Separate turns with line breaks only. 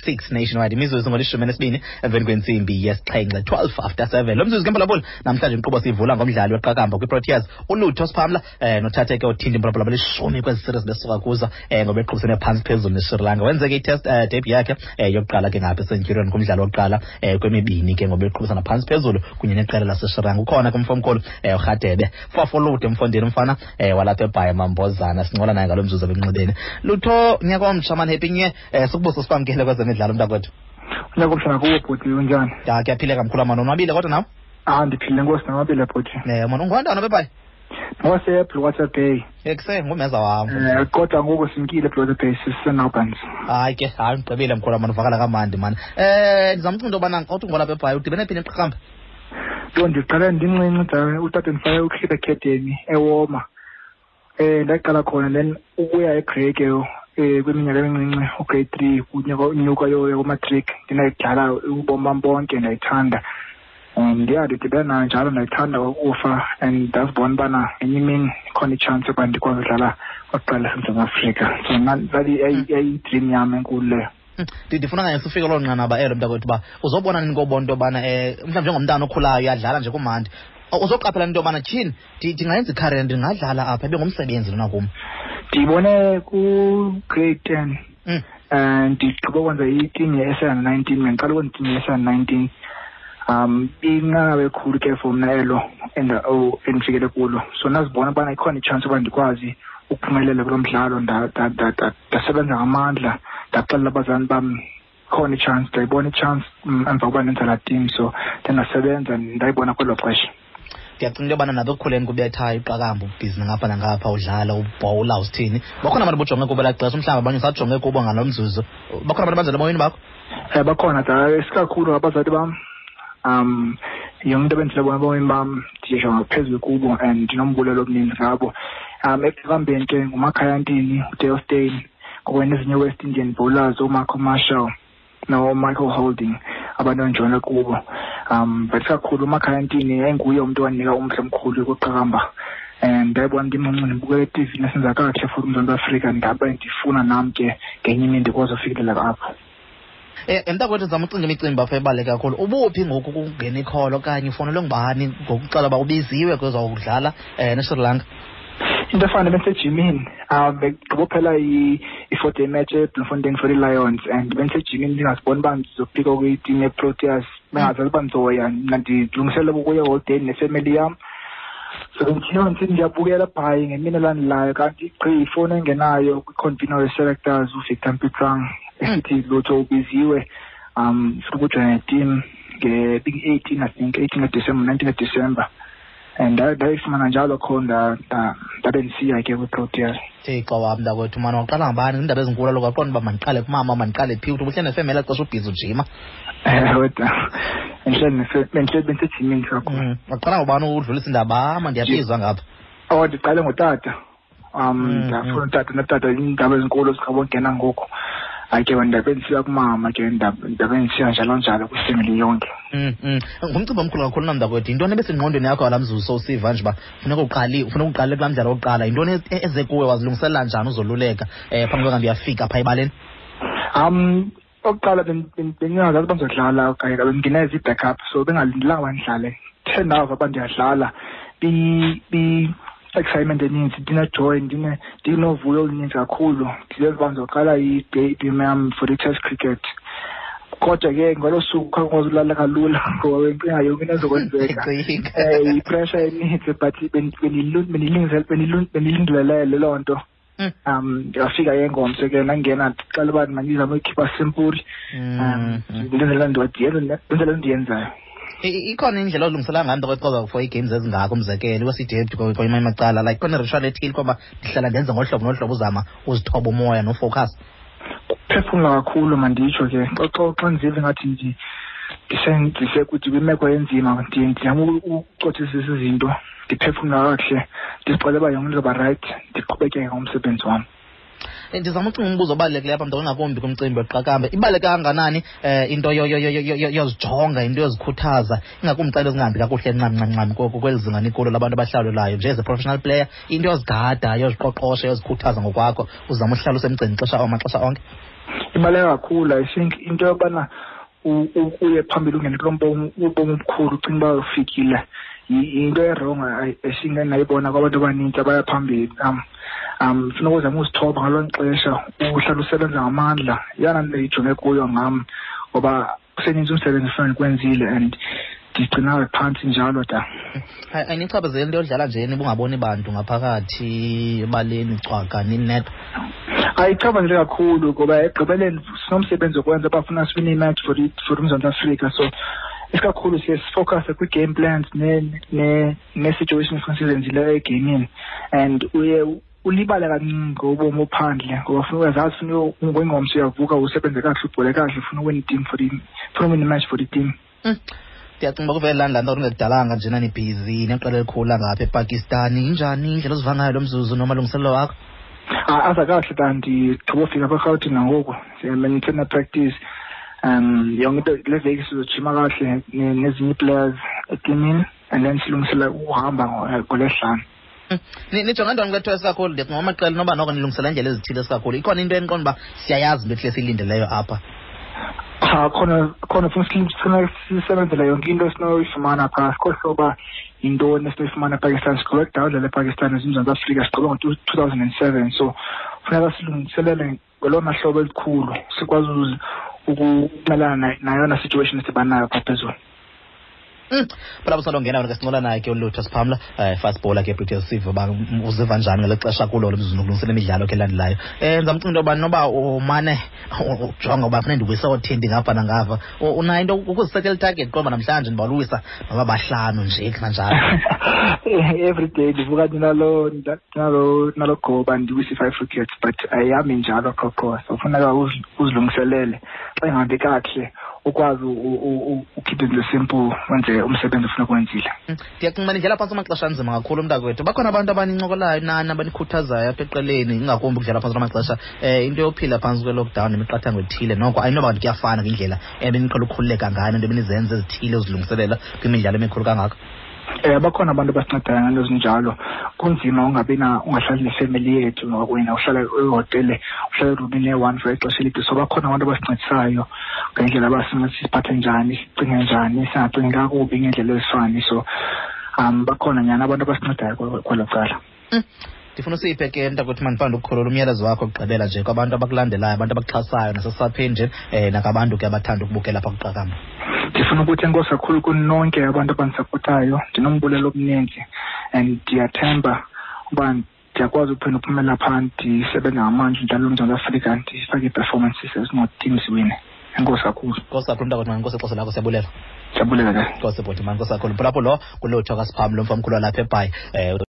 6 nationwide. Imizuzu ngolishumi nesibini emveni kwentsimbi yesixhenxe, 7:12. Lo mzuzu ke, mphulaphuli, namhlanje inkqubo siyivula ngomdlali weqakamba kwiProteas, uLutho Siphamla, nothathe ke uthinta impolopolo belishumi kwezi series besuka kuzo, ngoba eqhubisene phantsi phezulu neSri Lanka. Wenzeke itest debut yakhe yokuqala ke ngapha eCenturion kumdlalo wokuqala kwemibini ke, ngoba eqhubisana phantsi phezulu kunye neqela laseSri Lanka. Ukhona ke umfo omkhulu, uRhadebe Fafolude, mfondini, umfana walapha eBhayi, Mambozana. Sincola naye ngalo mzuzu ebenxibeni. Lutho, nyaka omtsha mani, happy new year. Sikubuso sikwamkele kwezemidlalo, mntakwethu.
Unyaka omtsha nakuwo, bhuti, unjani?
Ya, kuyaphileka, mkhulu mani, unwabile kodwa nawe?
Ah, ndiphile, nkosi, nonwabile, bhuti.
Mani, ungowantwana bebhayi?
Ngowase-Bluewater Bay.
Ekuse ngumeza wam.
Kodwa ngoku simkile eBluewater Bay, siseNalbans.
Hayi ke, hayi, ndigqibile, mkhulu mani, uvakala kamandi mani. Ndizamcinga into yobana kodwa ungolapha eBhayi, udibene phi neqakamba?
Yho, ndiqale ndincinci da, utata ndifake uClip Academy eWoma. Ndaqala khona, then ukuya eGrey ke kwiminyaka emincinci, ugrade 3 kunyaka unyuka yoya kumatric, ndinayidlala ubomi bam bonke, ndayithanda. And yeah, ndidibene nayo njalo, ndayithanda ukufa and ndazibona ubana ngenye imini ikhona itshansi yokuba ndikwazi udlala oqala laseMzantsi Afrika. So yayiyi-dream yam enkulu leyo.
Ndifuna kanye sifike loo nqanaba elo, mntakwethu, uba uzobona nini kobona into yobana, mhlawumbi njengomntana okhulayo uyadlala nje kumandi, uzoqaphela into yobana tyhini, ndingayenza icareer, ndingadlala apha, ibe ngumsebenzi lona kum?
Ndiyibone ku-grade 10. Ndigqiba ukwenza iteam ye-S 19, ndandiqala ukwenza iteam ye-S 19. Inqanaba elikhulu ke for mna elo endifikele kulo, so ndazibona ubana ikhona itshansi yoba ndikwazi ukuphumelela kulo mdlalo. Ndasebenza ngamandla, ndaxelela abazali bam khona itshansi, ndayibona itshansi emva kokuba ndenza laa team, so ndandasebenza, ndayibona kwelo xesha.
Ndiyacinga into yobana nabo ekukhuleni kubethayo iqakamba, ubhizi ngapha nangapha, udlala, ubhowula, usithini, bakhona abantu bojonge kubo elaa xesha, mhlawumbi abanye usajonge kubo ngalo mzuzu. Bakhona abantu abanjalo emoyeni bakho?
Bakhona da, isikakhulu abazali bam. Yonke into ebenzile bona ebomini bam ndijonga phezulu kubo and ndinombulelo omninzi ngabo. Ekuhambeni ke nguMakhaya Ntini, uDale Steyn, kwakunye nezinye West Indian bowlers, ooMarco Marshall noMichael Holding, abantu endijonge kubo. But kakhulu uMakhaya Ntini yayinguye umntu owandinika umdla omkhulu kwiqakamba, and ndayibona ndimncinci, ndibukela etivini esenza kakuhle futhi uMzantsi Afrika, ndabe ndifuna nam ke ngenye imini ndikwazi ufikelela apho.
Mntakwethu, zama ucinga imicimbi apha ebaluleke kakhulu. Ubuphi ngoku kungena ikholo okanye ufonelwe ngubani ngokuxela uba ubiziwe kwezawudlala neSri Lanka?
Into efana bendisejimini, begqiba uphela i-4-day match eBloemfontein for i-Lions, and bendisejimini ndingaziboni uba ndizophika kwitim yeProteas, bengazazi uba ndizoya. Mna ndilungiselela ukuya eholideyini nefemeli yam, so bendithiyo ndisithi ndiyabukela bhayi ngemini elandelayo, kanti gqi ifowuni engenayo kwi-convener we-selectors, uVictor Mpitsang, esithi, "Lutho, ubiziwe, funa ukujoyina neteam nge-18, I think 18 kaDisemba, 19 kaDisemba." And ndayifumana njalo kho, ndabe ndisiya ke kwiProteas.
Thixo wam, mntakwethu mani, waqala ngabani iindaba ezinkulu kaloku? Waqonda uba mandiqale kumama, mandiqale phi? Uthi ubuhleli nefemeli elaa xesha, ubhizi ujima?
Ewe da, bendihleli bendisejimini kakhulu.
Waqala ngubani udlulisa indaba ama, ndiyabizwa ngapha?
Oh, ndiqale ngotata. Ndafuna utata, notata iindaba ezinkulu zikabongena ngoku. Hayi ke, ndabe ndisiya kumama ke, ndabe ndisiya njalo njalo kwifemeli yonke.
Ngumcimbi omkhulu kakhulu namntakwethu. Yintoni ebesengqondweni yakho ngalaa mzuzu sowusiva nje uba funeka uqali, funeka uqale kulaa mdlalo wokuqala? Yintoni eze kuwe? Wazilungiselela njani, uzoluleka phambi koba kanti uyafika phaa ebaleni?
Okokuqala bendingazazi uba ndizodlala okanye bendingena ezi-backup, so bengalindelanga uba ndidlale. The ndava uba ndiyadlala, excitement eninzi, ndine-joy, ndinovuyo oluninzi kakhulu, ndizenza uba ndizoqala i-debut yam for i-test cricket. Kodwa ke ngolo suku khange kwazi ulala kalula ngoba bendicinga yonke into ezokwenzeka, yi-pressure eninzi, but bendilindelele loo nto. Ndingafika ke ngomso ke, ndangena, ndixela uba mandizame uyikhipha simple, ndenzela ndenzela ndiyenzayo.
Ikhona indlela olungisela ngayo, mntakwethu, for ii-games ezingako, umzekelo iwesidept kwamanye amacala, like khona ritual ethile kwaba ndihlala ndenze ngohlobo nohlobo, uzama uzithoba umoya nofocus?
Kuphefumla kakhulu, manditsho ke, xa ndiziva ngathi ndisekuthi kwimeko enzima, ndizama ukucothisisa izinto, ndiphefumla kakuhle, ndizixele uba yonke into izoba rayithi, ndiqhubekeke ngomsebenzi wam.
Ndizama ucinga umbuzo obalulekileyo apha, mntu, ingakumbi kumcimbi weqakamba. Ibaluleke kangakanani into yozijonga, into yozikhuthaza, ingakumbi xa into zingahambi kakuhle ncam ncam ncam kweli zinga nikulo labantu abahlawulelayo nje as a professional player, into yozigada, yoziqoqosha, yozikhuthaza ngokwakho, uzama uhlala usemgceni xesha maxesha onke?
Ibaluleke kakhulu. I think into yobana uye phambili, ungene kulo ubomi obukhulu, ucinga uba ufikile, yinto e-wrong esingayibona kwabantu abanintsi abaya phambili. Funeka uzame uzithoba ngalo xesha, uhlala usebenza ngamandla. Yeyona nto ijonge kuyo ngam, ngoba kuseninzi umsebenzi efuna ndikwenzile and ndigcina phantsi njalo da.
Ayinichaphazeli into yodlala nje nibungaboni bantu ngaphakathi ebaleni, cwaka, ninedwa?
Ayichaphazeli kakhulu, ngoba ekugqibeleni sinomsebenzi wokwenza, bafuna siwine imatch for uMzantsi Afrika. So isikakhulu siye sifocuse kwii-game plans nee-situations efuna sizenzileyo egeyimini, and uye ulibale kancinci ngobomi ophandle, ngoba funa uyazazi, funa ngengomso uyavuka usebenze kakuhle, ubhole kakuhle, ufuna uwina i-team for the funa uwina imatch for the team.
Ndiyacinga uba kuvele laa nto kungekudalanga njena nibhizi neqela elikhulu langapha ePakistan. Injani indlela oziva ngayo lo mzuzu nomalungiselelo wakho?
Aza kakuhle ta. Ndigqiba ufika apha eRhawutini nangoku, ndisena-practice yonke into. Le veki sizojima kakuhle nezinye ii-players etimini and then silungisela ukuhamba ngoLwesihlanu.
Nijonge ntoni kwethu esikakhulu? Ndicinga amaqela noba noko nilungisela indlela ezithile esikakhulu. Ikhona into eniqonda uba siyayazi into ethile esiyilindeleyo apha?
Cha, khona funa sisebenzele yonke into esinoyifumana phaa. Sikhohlwe uba yintoni esinoyifumana ePakistan. Sigqibe kudala udlala ePakistan eMzantsi Afrika, sigqibe ngo-2007, so funeka silungiselele ngolona hlobo elikhulu, sikwazi ukumelana nayona situation esidibana nayo phaa phezulu.
Phela usalongena wena ke, sincola naye ke uLutho Siphamla, fast bowler ke Proteas. Sive uba uziva njani ngeli xesha kulo lo mzuzu nokulungisela imidlalo ke elandelayo. Ndizamcinga into yoba noba umane ujonga uba funeka ndiwise oothindi ngapha nangapha, unayo into ukuzisetela itarget, qomba namhlanje ndibaluwisa noba bahlanu nje kanjalo?
Every day ndivuka ndinalo goba ndiwise i-five wickets, but ayihambi njalo qho qho, so funeka uzilungiselele. Xa ingahambi kakuhle, ukwazi ukhiphe izinto simple, wenze umsebenzi ofuneka uwenzile.
Ndiyacinga uba nidlala phantsi amaxesha anzima kakhulu, mntakwethu. Bakhona abantu abanincokolayo nani, abanikhuthazayo apha eqeleni, ingakumbi ukudlala phantsi kwamaxesha, into yophila phantsi kwe-lockdown nemiqathango ethile? Noko ayinoba kanti kuyafana ngendlela ebeniqhela ukukhululeka ngayo nento ebenizenza ezithile uzilungiselela kwimidlalo emikhulu kangaka.
Bakhona abantu abasincedayo ngento ezinjalo. Kunzima ungabi na, ungahlali nefemeli yethu wena, uhlala ehotele, uhlala erumini eyi-one for ixesha elide. So bakhona abantu abasincedisayo ngendlela abasinceda siphathe njani, sicinge njani, singacingi kakubi ngendlela ezifani. So bakhona nyhani abantu abasincedayo kwelo cala.
Ndifuna usiphe ke, mntakwethu, mandifande ukukhulula umyalezo wakho okugqibela nje kwabantu abakulandelayo, abantu abakuxhasayo nasesapheni nje, nakabantu ke abathanda ukubukela apha kuqakamba.
Ndifuna ukuthi enkosi kakhulu kunonke abantu abandisapotayo. Ndinombulelo omninzi and ndiyathemba uba ndiyakwazi uphinda uphumela phaa, ndisebenze ngamandla, ndidlale uMzantsi Afrika, ndifake ii-performances ezinoteam ziwine. Enkosi kakhulu.
Nkosi kakhulu, mntakwethu, mani, nkosi ixesha lakho, siyabulela.
Ndiyabulela ke.
Nkosi bhuti, mani, nkosi kakhulu. Phulaphula, lo nguLutho kaSiphamla, umfo omkhulu walapha eBhayi.